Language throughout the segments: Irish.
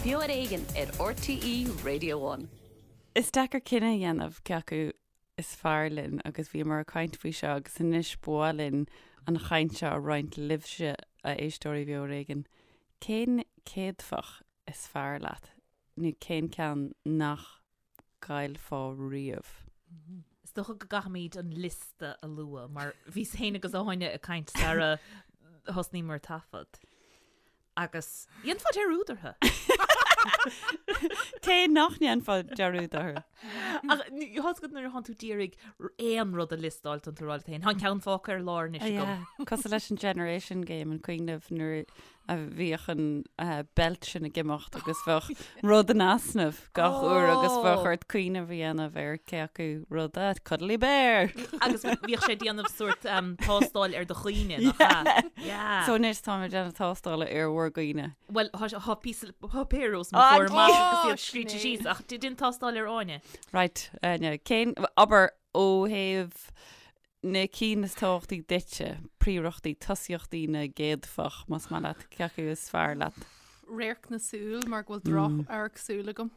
Beo ar Éigean ar RTÉ Radio One. Is deacair cinneadh a dhéanamh cé acu is fearr linn agus bhíomar ag caint faoi seo agus anois ba mhaith linn an chaint seo a roinnt libhse, a éisteoirí Bheo ar Éigean. Cén céadfach is fearr leat nó cén ceann nach gcaillfeá riamh? Is dócha go gcaithfimid an liosta a lua mar bhíos féin agus Áine ag caint sara thosnaíomar taifead. Agus dhéanfá dearúd orthu. Cé nach ndéanfá dearúd orthu? Ach tá's agat nuair atánn tú d'iarraidh aon rud a liostáil tá tú ag rá leat féin. Tá an ceann fágtha ar lár anois agam. Cosúil leis an Generation Game an cuimhin libh nuair a bhíodh an beilt sin ag imeacht agus bheadh rud in easnamh gach uair agus bheadh ort cuimhneamh a dhéanamh ar cé acu rud é, Cuddly Bear! Agus bhíodh sé ag déanamh sórt tástáil ar do chuimhne, nach ea? Yeah. So anois táim ag déanamh tástála ar bhur gcuimhne. Bhuel, tá píosa páipéir os mo chomhair amach agus iad scríte síos ach déan tástáil ar Áine. Right, Áine, cén, abair ó thaobh na cinn is tábhachtaí duitse, príorachtaí, tosaíochtaí na gcéadfach, más maith leat, cé acu is fearr leat? Radharc na súl mar go bhfuil droch-amharc súl agam.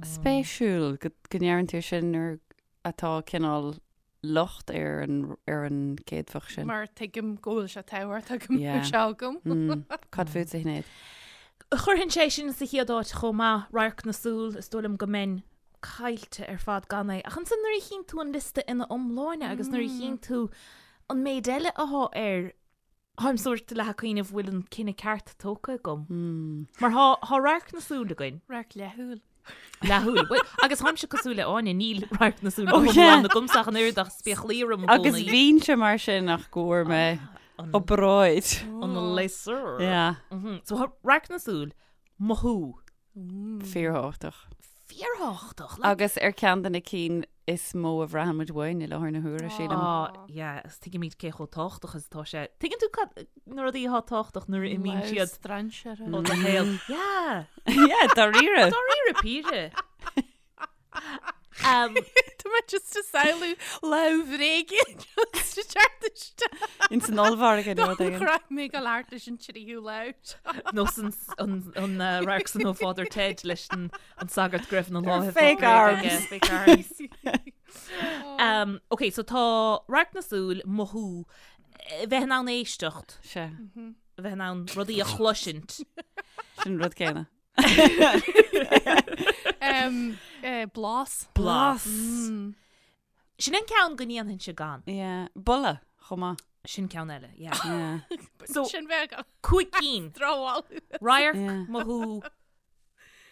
Spéisiúil go ndeireann tú sin nuair atá cineál locht ar an ar an gcéadfach sin. Mar tuigim go bhfuil sé tábhachtach go mbeadh sé agam. Cad fútsa, a Shinéad? Chuirfinn é sin sa chéad áit chomh maith, radharc na súl, is dóigh liom go mbeinn caillte ar fad gan é. Ach ansan nuair a chíonn tú an liosta ina iomláine agus nuair a chíonn tú an méid eile athá air, táim sórt leath ag cuimhneamh bhfuil an cinneadh ceart tógtha agam. Mar thá, thá radharc na súl againn. Radharc leathshúil. Leathshúil. Bhuel, agus tháimse cosúil le Áine, níl radharc na súl go hiomlán agamsa ach an oiread ach spéaclaí orm i gcónaí. Agus bhínnse mar sin ach go bhfuair mé obráid. An laser. Yeah. So thá radharc na súl, mothú. Fíorthábhachtach. Fíorthábhachtach. Agus ar ceann de na cinn is mó a bhraitheann muid uainn i láthair na huaire, sílim. Á, yeah, agus tuigimid cé chomh tábhachtach is atá sé. Tuigeann tú cad, na rudaí atá tábhachtach nuair a imíonn siad strainséara. ó do shaol. Yeah. Yeah, dáiríre. Dáiríre píre. Tá mé just ag samhlú lámh bhréige just ag teacht isteach. Ins an ollmhargadh nó rud éigin. Chroith mé go leart leis an tríú lámh. Nó san an radharc san ó Father Ted leis an sagart go raibh na lámha Fake arms. Fake arms. Um, ok, so tá radharc na súl, mothú, bheith in ann éisteacht. Sea. Bheith in ann rudaí a chloisint. Sin rud céanna. Blas. Blas. Sin an ceann go ndéanfainnse gan. Yeah. Boladh chomh maith. Sin ceann eile, yeah. Yeah. So, Sin bheith agam. cúig cinn. Dramháil. Radharc, Yeah. mothú,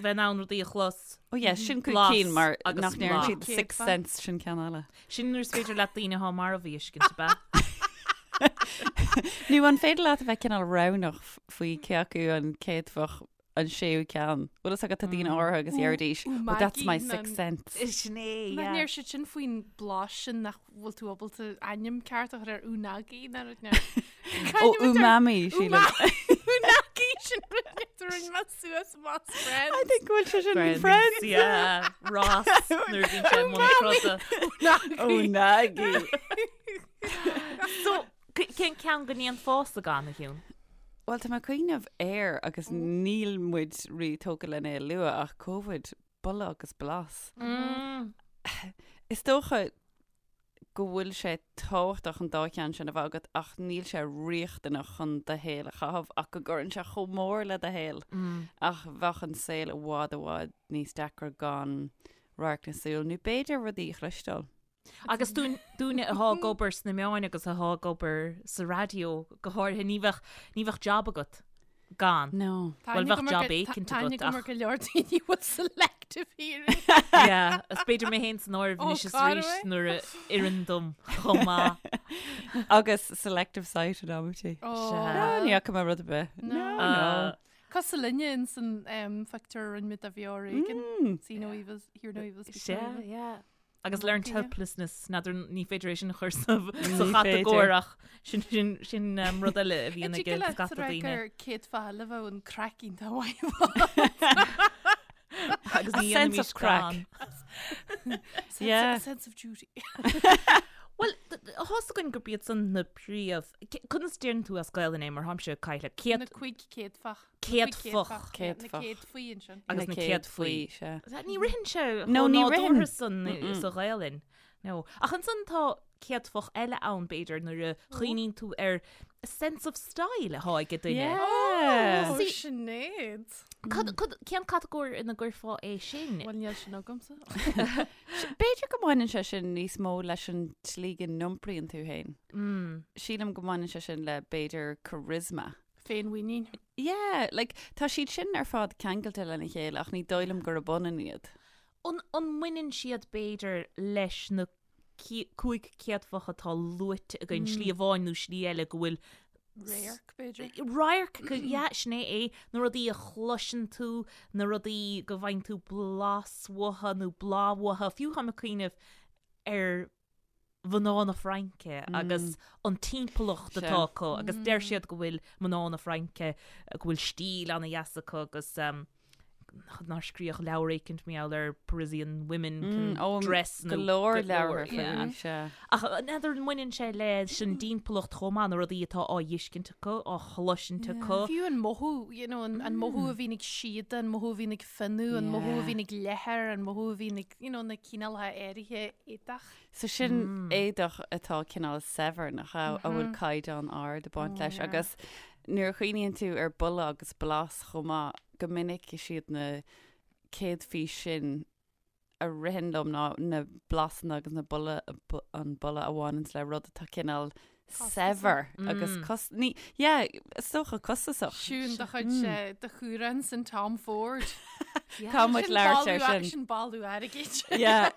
bheith in ann rudaí a chlos. Oh yeah, sin cúig Blas cinn mar agus nach ndeireann blas. siad sixth sense sin ceann eile. Sin nuair is féidir leat daoine atá marbh a fheiscint, ab ea? Nó an féidir leat a bheith cineál roghnach faoi cé acu an céadfach an séú ceann. Bhfuil fhios agat tá daoine áirithe agus deiridís, oh that's my sixth sense. Sin é, Nach yeah. ndeir siad sin faoin blas sin nach bhfuil tú ábalta ainm ceart a chur ar unagi ná rud ná. Ó umami, sílim. Unagi sin rud a rinne mé suas amach as Friends. I think go bhfuil sé sin in Friends. Yeah, Ross nuair a bhíonn sé i mbun troda. Unagi. So, Cén ceann go ndéanfása gan, a Shiún? Bhuel, tá mé ag cuimhneamh air agus níl muid rí-tógtha lena é a lua ach Covid, boladh agus blas. Is dócha go bhfuil sé tábhachtach an dá cheann sin a bheith agat ach níl sé riachtanach chun do shaol a chaitheamh ach go gcuireann sé chomh mór le do shaol. Ach bheadh an saol i bhfad i bhfad níos deacra gan radharc na súl nó b'fhéidir rudaí a chloisteáil. Agus dúinne athá ag obair sna meáin agus athá ag obair sa raidió go háirithe, ní bheadh, ní bheadh jab agat gan. No. Bhuel, bheadh jab éicint agat ach. Tá go leor daoine bhfuil selective hearing. Yeah, is b'fhéidir mé féin san áireamh anois is arís nuair a oireann dom chomh maith. Agus selective sight in amantaí. Sea. Ní fhaca mé rud ar bith. No, no. Cosúil linne ins an phictiúr a rinne muid de Bheo Ar Éigean. See no evil, hear no evil, speak no Sea, evil. yeah. Agus learned helplessness, n'fheadar ní féidir é sin a chur sa chatagóir ach sin sin sin um, rud eile a bhíonn ag scata daoine. gur céadfa eile bheadh an craic iontach mhaith. Agus ní A sense of dhéanaimis gan. craic. Yeah. Sense of duty. Bhuel, tá's againn gurb iad san na príomh... Conas deireann tú as Gaelainn é mar tháimse caillte? Céad... Na cuig céadfach. Céadfach. Céadfach. Na céadfaí ansin. Agus na céadfaí. Ní ritheann sé chomh nádúrtha san sa Ghaelainn. No. Ach ansan tá céadfach eile ann, b'fhéidir, nuair a chuimhníonn tú ar a sense of style atá ag duine. Yeah. Oh, Sinéad. Cad, cad, cén catagóir ina gcuirfeá é sin? Bhuel, níl sin agamsa. B'fhéidir go mbaineann sé sin níos mó leis an tslí go n-iompraíonn tú féin. Mm. Sílim go mbaineann sé sin le b'fhéidir charisma. Féinmhuinín. Yeah, like, tá siad sin ar fad ceangailte lena chéile ach ní dóigh liom gurb ionann iad. An, an mbaineann siad b'fhéidir leis na 5 céadfach atá luaite againn, slí amháin nó slí eile go bhfuil Radharc, b'fhéidir. Radharc, yeah, sin é é, na rudaí a chloiseann tú, na rudaí go bhfaigheann tú blas uathu nó bláth uathu, fiú táim ag cuimhneamh ar mhná na Fraince agus an timpeallacht atá acu agus deir siad go bhfuil mná na Fraince, go bhfuil stíl ana-dheas acu agus nár scríodh leabhar éicint mar gheall ar Parisian women can mm, dress nó go leor leabhar yeah. sea. Ach n'fheadar an mbaineann sé leis an dtimpeallacht chomh maith na rudaí atá á bhfeiscint acu, á chloisint acu. Fiú an mothú, you know, an, an mothú a bhíonn ag síoda, an mothú a bhíonn ag fionnadh, an mothú a bhíonn ag leathar, an mothú a bhíonn ag, you know, na cineálacha áirithe éadach. So sin mm. éadach atá cineál saibhir nach a bhfuil mm-hmm. caighdeán ard ag baint oh, leis agus nuair a chuimhníonn tú ar boladh agus blas chomh maith go minic is iad na céadfaí sin a ritheann liom ná na blasanna agus na boladh an boladh a bhaineanns le rud atá cineál saibhir agus cos ní yeah is dócha costasach. Siún do chuid de chumhrán san Tom Ford. Tá muid labhairt ar sin. Sin bailiú airgid. Yeah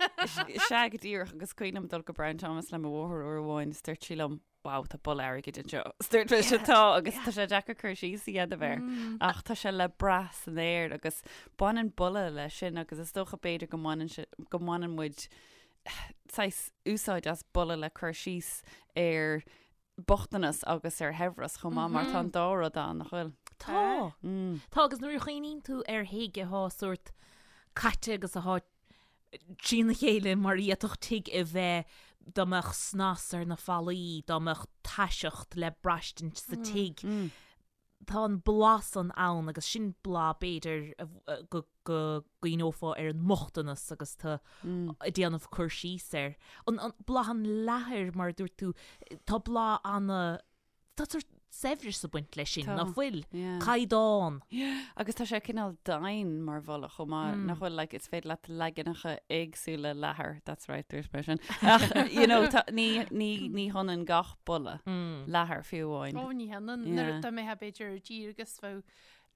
sea go díreach agus cuimhin liom dul go Brown Thomas le mo mháthair uair amháin is dúirt sí liom wow, tá boladh airgid anseo. Is dúirt mise tá agus tá sé deacair cur síos a dhéanamh air. Ach tá sé le brath san aer agus baineann boladh leis sin agus is dócha b'fhéidir go mbaineann sé go mbaineann muid saghas úsáid as boladh le cur síos ar bochtanas agus ar shaibhreas chomh maith mar tá an dá rud ann, nach bhfuil? Tá. Tá agus nuair a chuimhníonn tú ar thigh atá sórt caite agus atá trína chéile mar a d'fhéadfadh tigh a bheith dá mbeadh snas ar na fallaí, dá mbeadh taiseacht le braistint sa tigh. Tá an blas san ann agus sin blas b'fhéidir go gcuimhneofá ar an mbochtanas agus tú ag déanamh cur síos air. An blas an leathair mar a dúirt tú, tá blas ana Tá sórt saibhreas ag baint leis sin, nach bhfuil? Caighdeán. Agus tá sé cineál domhain mar bholadh chomh maith, nach bhfuil, like, is féidir leat leaganacha éagsúla leathair, that's right, dúirt mé sin. Ach, you know, tá, ní, ní, ní hionann gach boladh leathair fiú amháin. Ó, ní hionann. Nuair dá mbeifeá b'fhéidir ar tír agus bheadh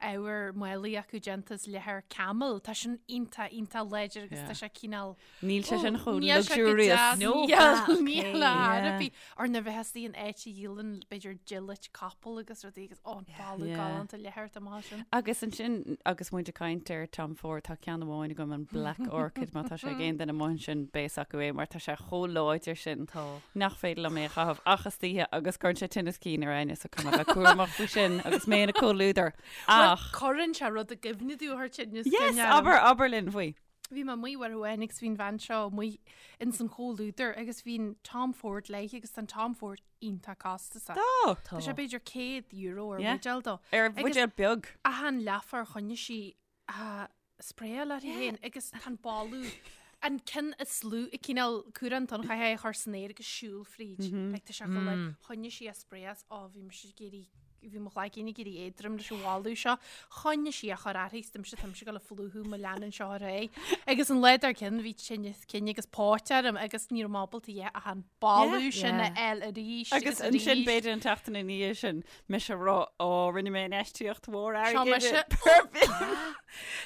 ábhar málaí acu déanta as leathar camel, tá sin iontach, iontach láidir agus tá sé cineál Níl sé sin chomh luxurious. No, níl ar bith. Or nuair a bheifeá istigh in áit a dhíolann b'fhéidir dilirt capall agus rudaí agus ó, an boladh galánta leathair atá amach sin. Agus ansin, agus muid ag caint ar Tom Ford, tá ceann amháin agam, an Black Orchid, má tá sé ag aon duine amuigh ansin, beidh a fhios acu é mar tá sé chomh láidir sin nach féidir liom é a chaitheamh ach istoíche agus cuireann sé tinneas cinn ar éinne so caithfidh mé a bheith cúramach faoi sin agus mé ina comhluadar. Ach. Cuireann sé rud i gcuimhne domh a chuir tinneas cinn Yes, abair, abair linn faoi. Bhí mé amuigh uair amháin agus bhí an bhean seo amuigh ins an chomhluadar agus bhí an Tom Ford léi agus tá an Tom Ford iontach costasach. Tá! Tá sé b'fhéidir €100 ar Yeah. bhuidéal dó. Ar bhuidéal beag. Achan leathuair choinnigh sí á spraeáil uirthi féin agus tá an boladh an ceann is lú i cineál cumhrán tonn chaithfeá é a chur san aer agus siúl fríd. Like, tá sé chomh like, choinnigh sí á spraeáil is ó bhí mise ag iarraidh bhí mo chloigeann ag éirí éadrom leis an bholadh seo. Choinnigh sí á chur uirthi is dúirt mise tá mise ag dul a phlúchadh má leanann seo ar aghaidh. Agus an lá dár gcionn bhí tinneas cinn agus póit orm agus ní raibh mé ábalta a dhath ach an boladh sin a fháil arís Agus ansin b'fhéidir an tseachtain ina dhiaidh sin mise ag rá ó rinne mé infheistíocht mhór Seo airgid mise. i perfume.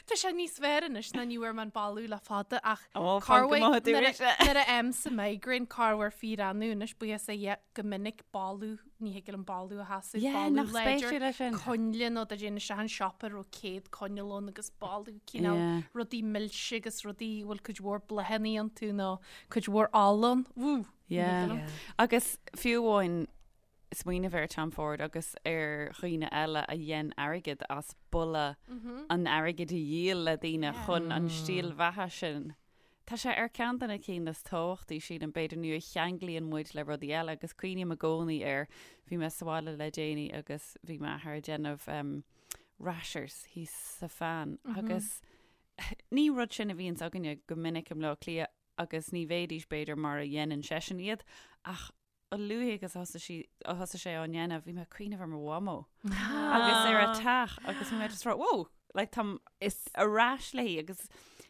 Tá sé níos fearr anois ná ní bhfuair mé an boladh le fada ach Ó, fan go maith nuair dúirt. a nuair a fhaighimse migraine corruair fíor-annamh anois buíochas le Dhia go minic boladh ní thig liom boladh a sheasamh, Yeah, boladh nach láidir, spéisiúil é sin. coinnle nó dá dtéinn isteach in siopa a raibh 100 coinneal ann agus boladh cineál Yeah. rudaí milse agus rudaí a bhfuil cuid mhór bláthanna iontu nó cuid mhór ola ann. Wú! Ní thig Yeah. liom. Agus fiú amháin smaoineamh ar Tom Ford agus ar dhaoine eile a dhein airgead as boladh an airgid a dhíol le daoine chun an stíl bheatha sin. Tá sé ar ceann de na cinn is tábhachtaí, sílim, b'fhéidir, nó a cheanglaíonn muid le rudaí eile agus cuimhním i gcónaí air, bhí mé sa bhaile le déanaí agus bhí m'athair ag déanamh rashers thíos sa phan agus ní rud sin a bhíonns againne go minic i mBleá Cliath agus ní bheidís b'fhéidir mar a dhéanann seisean iad ach a luaithe agus a thosaigh sí, a thosaigh sé á ndéanamh, bhí mé ag cuimhneamh ar mo mhamó agus ar a teach agus bhí mé just rá, whoa, like táim Is ar ais léi agus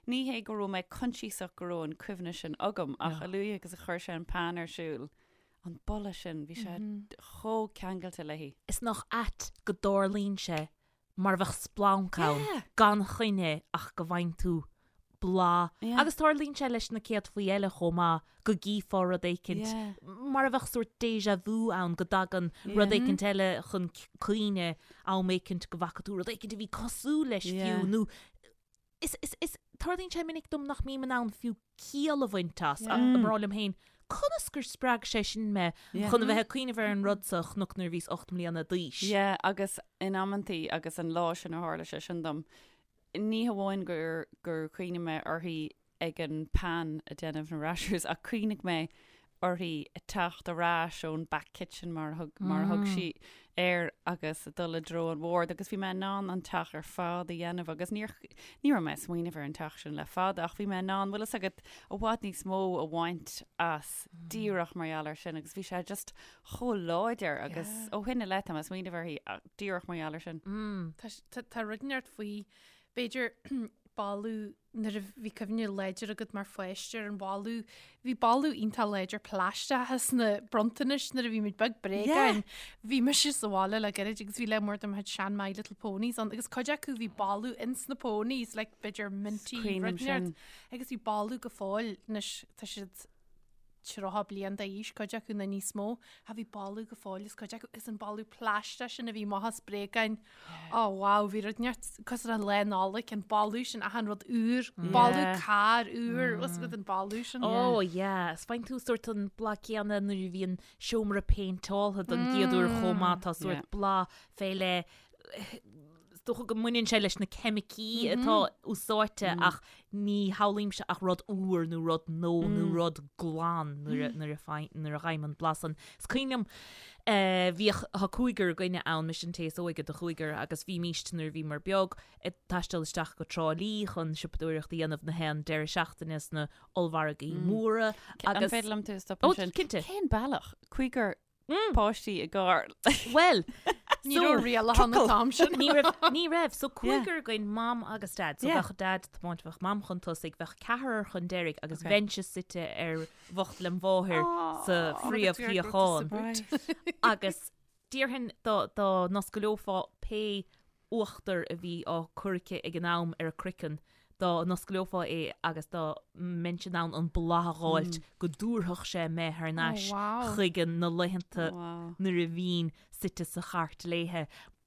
ní hé go raibh mé coinsiasach go raibh an cuimhne sin agam ach a luaithe agus a chuir sé an pan ar siúl, an boladh sin, bhí sé chomh ceangailte léi. Is nach ait go dtarlaíonn sé mar a bheadh splanc ann gan choinne ach go bhfaigheann tú blas. Agus tarlaíonn sé leis na céadfaí eile chomh maith, go gcífeá rud éicint, mar a bheadh sórt déjà vu ann, go dtagann rud éicint eile chun cuimhne am éicint go bhfaca tú rud éicint a bhí cosúil leis fiú, nó is, is, is, tarlaíonn sé minic dom nach mbím in ann fiú ciall a bhaint as, ach ag rá liom féin, conas gur spreag sé sin mé chun a bheith ag cuimhneamh ar an rud seo a chonac nuair a bhíos 8 mbliana d'aois. Yeah, agus in amantaí, agus an lá sin a tharla sé sin dom, ní hamháin gur, gur chuimhnigh mé uirthi ag an pan ag déanamh na rashers, ach chuimhnigh mé uirthi ag teacht ar ais ón back kitchen mar a thug, mar a thug sí air agus ag dul i dtreo an bhoird agus bhí mé in ann an teach ar fad a dhéanamh agus níor, ní raibh mé ag smaoineamh ar an teach sin le fada ach bhí mé in ann, bhfuil fhios agat, i bhfad níos mó a bhaint as díreach mar gheall air sin agus bhí sé just chomh láidir agus ó shin i leith tá mé ag smaoineamh uirthi díreach mar gheall air sin. Tá, tá, tá rud inteacht faoi, b'fhéidir boladh nuair a bhí cuimhne láidir agat mar pháiste ar an bholadh, bhí boladh iontach láidir plaisteach sna bronntanais nuair a bhí muid beag, bréagáin. Bhí mise sa bhaile le gairid agus bhí lear mór de mo chuid sean My Little Ponies ann agus cuid acu bhí boladh ins na ponies, like b'fhéidir minty Cuimhním rud inteacht. sin. Agus bhí boladh go fóill anois tá siad 30 bliain d'aois, cuid acu nó níos mó, ach bhí boladh go fóill as cuid acu, is an boladh plaisteach sin a bhí amach as bréagáin. Ó wow, bhí rud inteacht cosúil le Lá Nollag, an boladh sin, achan rud úr, boladh carr úr, bhfuil fhios agat an boladh sin. Ó yeah, is faigheann tú sórt an blas céanna nuair a bhíonn seomra péinteáltha don gcéad uair chomh maith, tá sórt blas fé leith, Is dócha go mbaineann sé leis na ceimicí atá úsáidte ach ní shamhlaímse ach rud úr nó rud nua nó rud glan nuair a nuair a fai- nuair a fhaighim an blas san. Is cuimhin liom eh, bhíodh tá cúigear againne ann, mise an té is óige de chúigear agus bhímíst nuair a bhíomar beag ag taisteal isteach go Trá Lí chun siopadóireacht a dhéanamh na haon deireadh seachtaine sna ollmhargaí móra An agus féidir liom tú a Ó, stopadh ansin? cinnte. Cén bealach? Cúigear páistí i gcarr. Bhuel, Ní raibh rialacha an t-am sin. Ní raibh, ní raibh. So cúigear againn, mam agus dad. So bheadh dad ag tiomáint, bheadh mam chun tosaigh, bheadh ceathrar chun deiridh agus bheinnse suite ar bhocht lem mháthair sa phríomhshuíochán. Agus déarfainn dá dá n-oscaileofá pé uachtar a bhí á cur aici ag an am ar a croiceann, dá n-oscaileofá é agus dá mbeinnse in ann an boladh a dh'fháilt go dtabharfadh sé mé thar n-ais chuig na laethanta nuair a bhínn suite sa chairt léithe.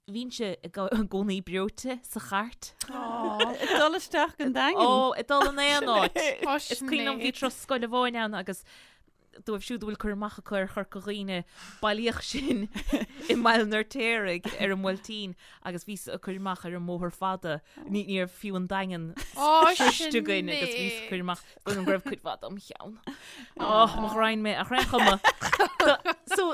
Bhínnse i gcónaí breoite sa chairt. Ag dul isteach go Daingean. Ó, ag dul in aon áit. Is cuimhin liom bhí turas scoile amháin ann agus Dóibh siúd a bhfuil cur amach acu ar Chorca Dhuibhne, bailíodh sinn i mBaile an Fheirtéaraigh ar an Bhuailtín agus bhíos ag cur amach ar an mbóthar fada. Ní ní raibh fiú an Daingean sroichte againn agus bhíos ag cur amach go raibh cuid mhaith dom cheann. Ó, mo ghraidhin mé, ach ar aon chuma. So,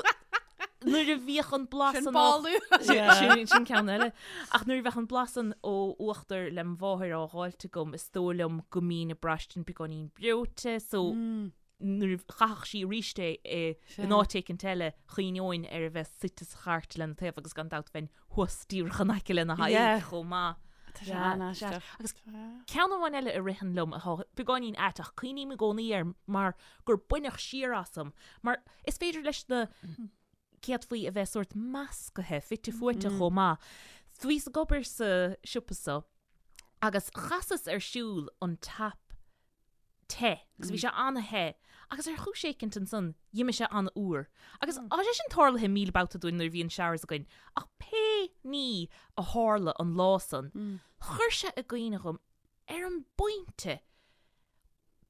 nuair a bhíodh an blas Sin an ó- boladh. Sin sin ceann eile. Ach nuair a bheadh an blas san ó uachtar lem mháthair á dh'fháilt agam, is dóigh liom go mbínn ag braistint beagáinín breoite, so nuair a chaithfeadh sí arís é in áit éicint eile, chuimhneoinn ar a bheith suite sa chairt lena taobh agus gan dabht bheinn thuas díreach in aice lena haghaidh chomh maith. Tá sé an-aisteach. Agus ceann amháin eile a ritheann liom atá beagáinín ait ach cuimhním i gcónaí air mar gur baineadh siar asam, mar is féidir leis na céadfaí a bheith sórt meascaithe, fite fuaite chomh maith. Bhíos ag obair sa siopa so agus chasas ar siúl an tap te agus bhí sé an-the agus ar chúis éicint ansan d'imigh sé an-fhuar. Agus tá sé sin tarlaithe 1,000 babhta dúinn nuair a bhíonn showers againn ach pé ní a tharla an lá san, chuir sé i gcuimhne dhom ar an bpointe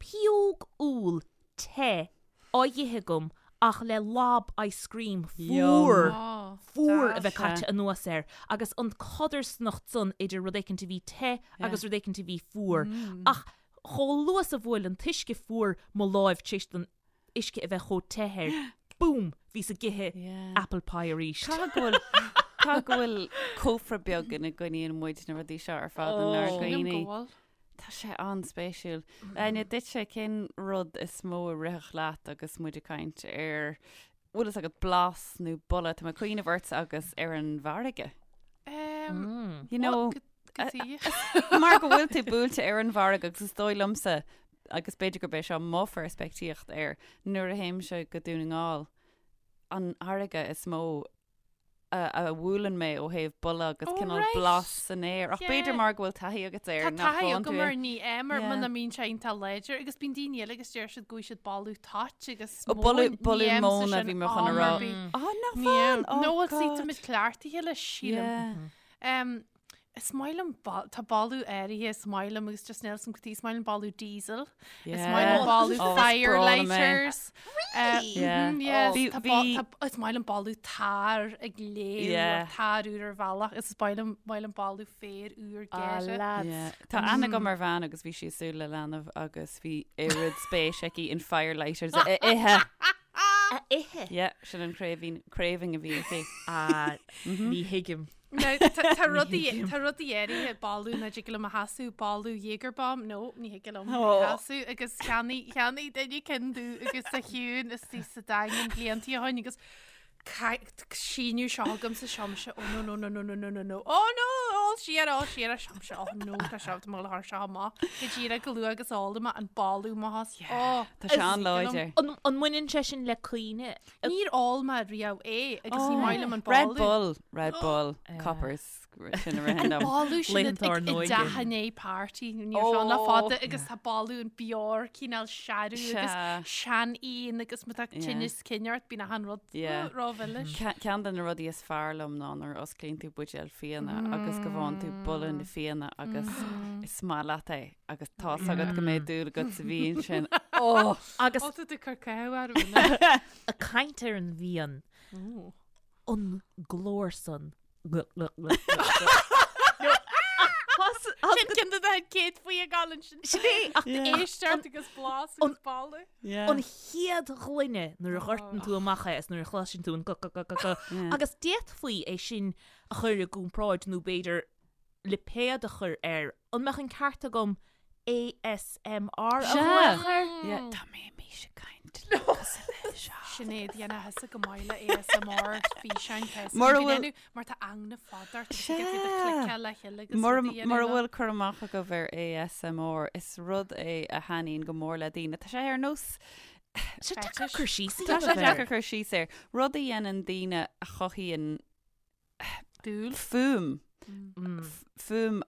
pióg úll te á dh'ithe agam ach le lob ice cream fuar, fuar a bheith caite anuas air agus an codarsnacht san idir rud éicint a bhí te agus rud éicint a bhí fuar. Ach. Chomh luath is a bhuail an t-uisce fuar mo láimh tar éis don uisce a bheith chomh te air, boom, bhíos ag ithe apple pie arís. Caithfidh go bhfuil caithfidh go bhfuil cófra beag ina gcoinníonn muid na rudaí seo ar fad inár Sílim go gcuimhní. bhfuil. Tá sé an-spéisiúil. Áine, duitse, cén rud is mó a rithfeadh leat agus muid ag caint ar, bhfuil fhios agat, blas nó boladh, tá mé ag cuimhneamh ortsa agus ar an bhfarraige. Um, You know, go dtí. mar go bhfuil tú buailte ar an bhfarraige agus is dóigh liomsa, agus b'fhéidir gurb é seo mo pheirspictíocht air, nuair a théimse go Dún na nGall, an fharraige is mó a bhuaileann mé ó thaobh boladh agus Oh, cineál right. blas san aer. Ach b'fhéidir Yeah. mar go bhfuil taithí agat air Tá nach taithí bhfaigheann tú agam é. air ní é mar Yeah. muna mbíonn sé iontach láidir agus bíonn daoine eile agus deir siad go bhfuil siad boladh toit agus Ó, boladh- móin. boladh Ní fhaighimse móna sin bhí mé chun a am rá. ar bith. Á, nach Ní bhfaigheann? fhaigheann. Oh, No, well, see, God. tá muid cleachtaithe leis, sílim. Yeah. Um, Is maith liom, tá boladh áirithe, is maith liom agus just níl 'fhios a'm cad chuige, is maith liom boladh diesel, is maith liom boladh fire lighters. Really? Yeah. Yeah. Bhí- Tá bhí- bo- tá- Is maith liom boladh tar ag léim Yeah. or tar úr ar bhealach, is maith liom maith liom boladh féar úr Ah, geire. lads. Yeah. Tá aithne agam ar bhean agus bhí sí ag súil le leanbh agus bhí oiread spéis aici in fire lighters a ithe. A ithe? Yeah, sin an craving, craving a bhí aici. Ah, ní thuigim. Now, tá tá rudaí tá rudaí áirithe boladh nach dtig liom a sheasamh, boladh Jäger bomb, no, ní thig liom a Oh. sheasamh agus cheannaigh cheannaigh duine ceann domh agus sa chiúin istigh sa Daingean blianta ó shin agus síneadh seo agam sa seomsa, oh no no no no no no no no, oh no, ól siar, ól siar, a seomsa, oh no, tá seo, tá mo leabhar seo amach, go díreach go luath agus ól amach an boladh mo thos, oh, Tá sé an-láidir. An an mbaineann sé sin le cuimhne? Níor ól mé riamh é agus ní maith liom an Red boladh. Bull, Red Bull, Coppers, sin a ritheann liom. Boladh sin Laethanta ár i n-óige. dteach i ndiaidh party ní raibh sé le fada agus tá boladh an beoir cineál searbh agus Sea. seanfhíon agus má tá Yeah. tinneas cinn ort bíonn achan rud Yeah. rómhilis. Ceann de na rudaí is fearr liom ná nuair a osclaíonn tú buidéal fíona agus go bhfaigheann tú boladh na fíona agus is maith leat é agus tá's agat go mbeidh dúil agat sa bhfíon sin. Oh! Agus Ó, tá tú ag cur cáineadh orm. ag caint ar an bhfíon, an glór san. Sin ceann de na céad faoi ag gabháil ansin. Sin é, ach Éisteacht agus blas agus boladh. an chéad ghloine nuair a dhortann tú amach é is nuair a chloiseann tú an go go go go go agus d'fhéadfaí é sin a chur i gcomparáid nó b'fhéidir lipéad a chur air, an mbeadh an ceart agam ASMR a Sea. ghlaoch air? Yeah, dá mbeimis ag caint le cosúil le seo. Sinéad, dhéanfá thusa go maith le ASMR físeáin tá Mura go bhfuil- ndéanadh, mar tá eagna fada ort agus Sea. go dtig cliceáil le chéile agus Mura rudaí a mura dhéanamh. bhfuil cur amach agaibh ar ASMR, is rud é a thaitníonn go mór le daoine. Tá sé ar nós Sé deacair cur síos a Tá sé dhéanamh air. deacair cur síos air. Rud a dhéanann daoine a chothaíonn Dúil. fuaim. Fuaim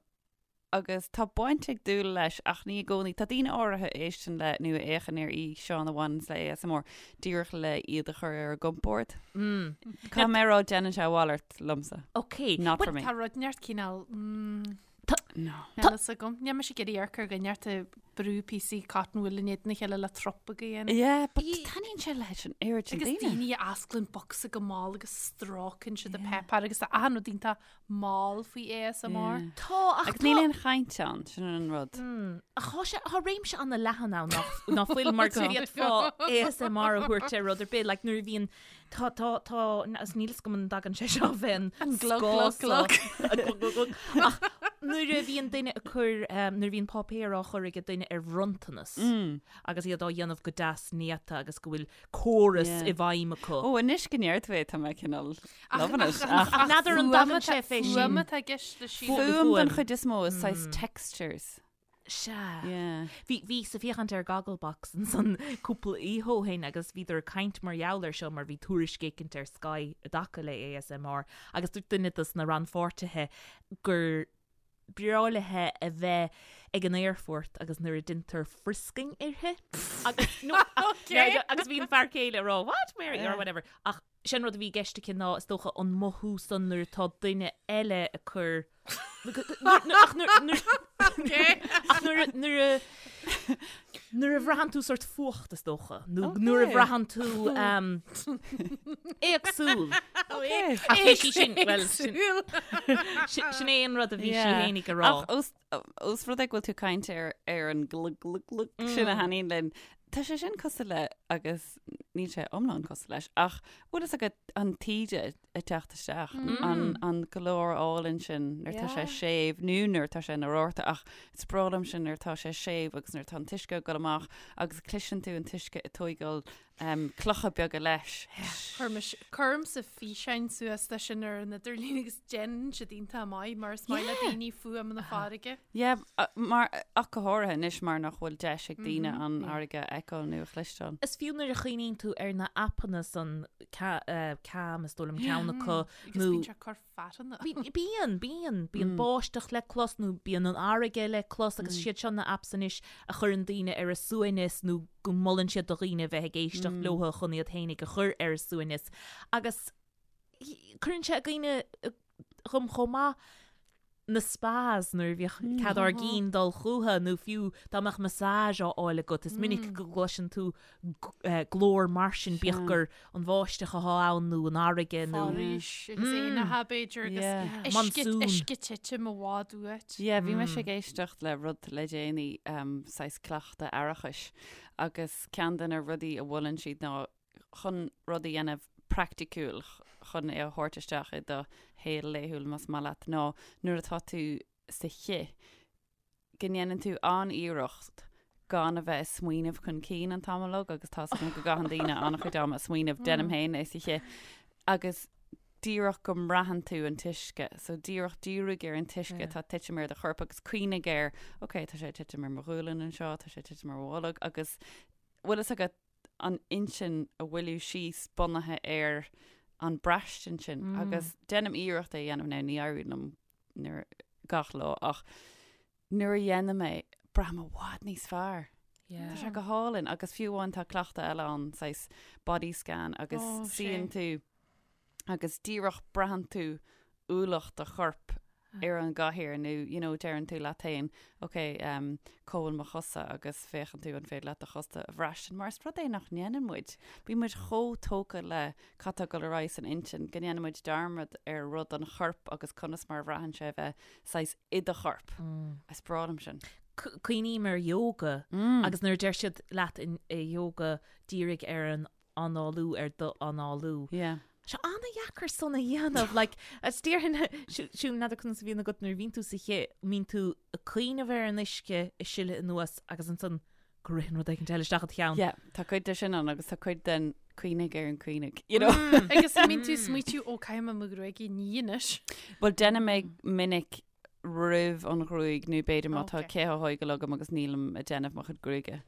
agus tá baint ag dúil leis ach ní i gcónaí. Tá daoine áirithe a éisteann le nó a fhéachann ar fhíseáin a bhaineanns le ASMR díreach le iad a chur ar a gcompord. Caithfidh mé a rá déanann sé a mhalairt liomsa. Ok. Not for me. Tá rud inteacht cineál mm, No. Níl fhios agam. Níl mise ag iarraidh amharc ar dhuine inteacht ag brú píosaí cotton wool in éadan a chéile le trup a dhéanamh. Yeah, but taitníonn sé leis an oiread sin Agus daoine. daoine a osclaíonn bocsa go mall agus stróiceann siad an páipéar agus tá achan rud iontach mall faoi ASMR. Yeah. Tá, ach Agus níl aon chaint ann, sin an rud. Ach tá sé, tá réimse an-leathan ann nach, nach bhfuil mar go bhféadfá ASMR a thabhairt ar rud ar bith, like nuair a bhíonn, tá, tá, tá, agus níl fhios agam an dtagann sé seo bheith An glug, glug, glug. An glug, glug, glug. Ach nuair a bhíonn duine ag cur, nuair a bhíonn páipéar á chur ag duine ar bhronntanas agus iad á dhéanamh go deas néata agus go bhfuil córas Yeah. i bhfeidhm acu. Ó, anois go ndeir tú é, tá mé cineál loving it. Ach n'fheadar an dtagann sé fé sin. Fuaim atá i gceist le sílim. Fuaim den Fuaim. chuid is mó is saghas textures. Sea. Yeah. Bhí, bhíos ag féachaint ar Gogglebox ansan cúpla oíche ó shin agus bhíodar ag caint mar gheall air seo mar bhí tuairisc éicint ar Sky i dtaca le ASMR agus dúirt duine dos na rannpháirtithe gur breá léithe a bheith ag an aerfort agus nuair a deintear frisking uirthi agus no, Okay. agus bhí an fear céile ag rá what Mary or whatever ach sin rud a bhí i gceist aici ná is dócha an mothú san nuair atá duine eile ag cur ach nuair ach nuair nuair a Nuair a bhraitheann tú sort fuacht is dócha, nó nuair a bhraitheann tú éagsúil. Ach bhí sí sin, well, sin sin é an rud a bhí sí fhéinig a rá. Ach os os rud é go bhfuil tú ag caint ar ar an glug glug glug sin a thaitníonn linn, tá sé sin cosúil le agus níl sé iomlán cosúil leis, ach bhfuil fhios agat an taoide ag teacht isteach, an an glór álainn sin nuair tá sé séimh nó nuair tá sé ina rabharta ach is breá liom sin nuair tá sé séimh agus nuair tá an t-uisce ag dul amach agus cloiseann tú an t-uisce ag tóigeáil clocha beaga leis. Cuirimse físeáin suas de sin ar an idirlíon agus déanann siad iontach maith mar is maith le daoine fuaim na farraige. Yeah, mar ach go háirithe anois mar nach bhfuil deis ag daoine an fharraige a fheiceáil nó a chloisteáil. Is fiú nuair a chuimhníonn tú ar na aipeanna san Calm is dóigh liom ceann acu Agus bíonn sé ag cur fearthainne. Bíonn, bíonn. Bíonn báisteach le clos nó bíonn an fharraige le clos agus siad seo na apps anois a chuireann daoine ar a suaimhneas nó go molann siad do dhaoine a bheith ag éisteacht leo chun iad fhéinig a chur ar a suaimhneas. Agus cuireann sé i gcuimhne dhom chomh maith na spas nuair a bhíodh cead ár gcinn dul chucu nó fiú dá mbeadh massage á fháil agat is minic go gcloiseann tú glór mar sin bíodh gur an bháisteach atá ann nó an fharraige nó Foraois agus éanacha b'fhéidir agus uisce uisce ag titim i bhfad uait. Yeah, bhí mise ag éisteacht le rud le déanaí saghas cleachtadh aireachais agus ceann de na rudaí a mholann siad ná chun rud a dhéanamh praiticiúil chun é a thabhairt isteach i do shaol laethúil más maith leat ná nuair atá tú sa chith go ndéanann tú an-iarracht gan a bheith ag smaoineamh chun cinn an t-am uilig agus tá's agam go gcaitheann daoine an-chuid ama ag smaoineamh, déanaim féin é sa chith agus díreach go mbraitheann tú an t-uisce so díreach dírigh ar an t-uisce atá ag titim ar do chorp agus cuimhnigh air ok tá sé ag titim ar mo ghualainn anseo, tá sé ag titim ar mo bholg agus bhfuil fhios agat an intinn a mhoilliú síos bunaithe ar an braistint sin agus déanaim iarracht é a dhéanamh now ní éiríonn liom nuair gach lá ach nuair a dhéanaim é braithim i bhfad níos fearr. Tá sé go hálainn agus fiú amháin tá cleachtadh eile ann saghas body scan agus suíonn tú agus díreach braitheann tú ualach do choirp ar an gcathaoir nó you know deireann tú leat féin ok um, cá bhfuil mo chosa agus féachann tú an féidir leat do chosa a bhraistint mar is rud é nach ndéanann muid. Bíonn muid chomh tógtha le cad tá ag dul ar aghaidh san intinn go ndéanann muid dearmad ar rud an choirp agus conas mar a bhraitheann sé a bheith saghas i do chorp. Is breá liom sin. Cuimhním ar yoga agus nuair a deir siad leat in i yoga dírigh ar an análú ar do análú. Yeah. Sé an-dheacair san a dhéanamh, like, is déarfainn, Siún, n'fheadar conas a bhíonn agat nuair a bhíonn tú sa chith, mbíonn tú ag cuimhneamh ar an uisce ag sileadh anuas agus ansan go ritheann rud éicint eile isteach i do cheann. Yeah, tá cuid de sin ann agus tá cuid den cuimhnigh ar an cuimhnigh, you know. Agus an mbíonn tú ag smaoitiú, ó, caithfidh mé mo ghruaig a ní anois. Bhuel, déanaim é minic roimh an ghruaig nó b'fhéidir má tá cith á thógáil agam agus nílim ag déanamh mo chuid gruaige.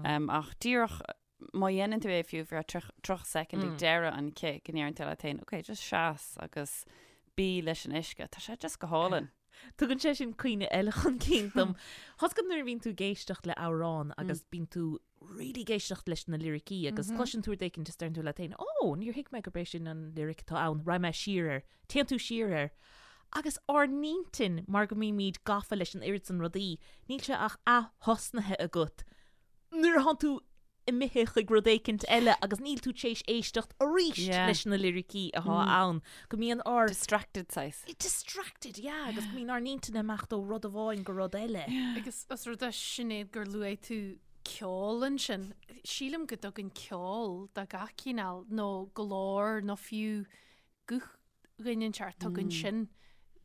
Um, ach díreach má dhéanann tú é fiú ar feadh 30 soicind ag deireadh an chith go ndeireann tú leat féin, ok, just seas agus bí leis an uisce. Tá sé just go hálainn. Tugann sé sin cuimhne eile chun cinn dom. Tá's agat nuair a bhíonn tú ag éisteacht le amhrán agus bíonn tú really ag éisteacht leis na liricí agus cloiseann tú rud éicint is deireann tú leat féin, ó, níor thuig mé gurb é sin an lyric atá ann, raghaidh mé siar air. Téann tú siar air. Agus ár n-intinn, mar go mbímid gafa leis an oiread san rudaí, níl sé ach ath-thosnaithe agat nuair atánn tú imithe chuig rud éicint eile agus níl tú tar éis éisteacht arís leis na liricí atá ann, go mbíonn ár. Distracted saghas. Distracted, yeah, agus go mbíonn ár n-intinn ag imeacht ó rud amháin go rud eile. Agus os rud é Sinéad gur luaigh tú ceol ansin, sílim go dtugann ceol de gach cineál nó glór nó fiú guth dhuine inteacht, tugann sin,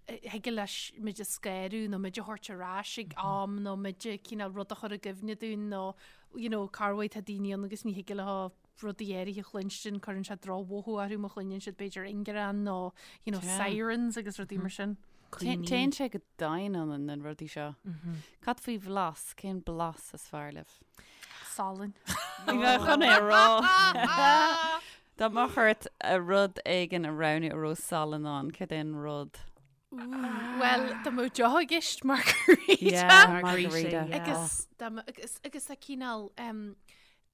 thig leis muid a scanrú nó muid a thabhairt ar ais ag am nó muid a cineál rud a chur i gcuimhne dúinn nó you know corruair tá daoine ann agus ní thig leo rudaí áirithe a chluinstin, cuireann sé drochmhothú orthu má chluineann siad b'fhéidir ingearán nó you know sirens agus rudaí mar sin. Téann sé go domhain ionainn na rudaí seo. Cad faoi bhlas? Cén blas is fearr libh? Salann. Bhí mé chun é a rá. Dá mbeadh ort rud éigin a roghnú a raibh salann ann, céard é an rud? Bhuel, dá mbeadh deoch i gceist margarita. Yeah, margarita. Agus dá mbeadh, agus, agus a cineál um,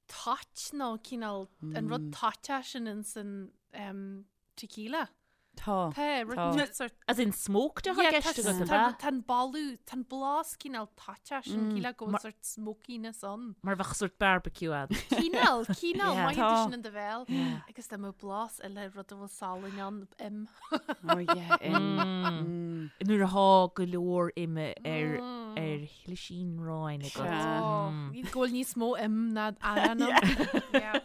toit nó cineál an rud toiteach sin ins an um, tequila. Tá. Tá, rud Tá. inteacht sort. As in smoked atá Yeah, i gceist tá- agat, ab tá- ea? Tá an boladh, tá an blas cineál toiteach sin, cineál go bhfuil Mar- sort smokiness ann. Mar bheadh sort barbecue ann. Cineál, cineál, Yeah. mothaíonn tú Tá. sin in do bhéal. Agus dá mbeadh blas eile rud a bhfuil salann ann, im. Oh yeah, im. Mm. Nuair atá go leor ime ar ar shlisín aráin agat. Sea. Oh, go bhfuil níos mó im ná arán ann. Yeah.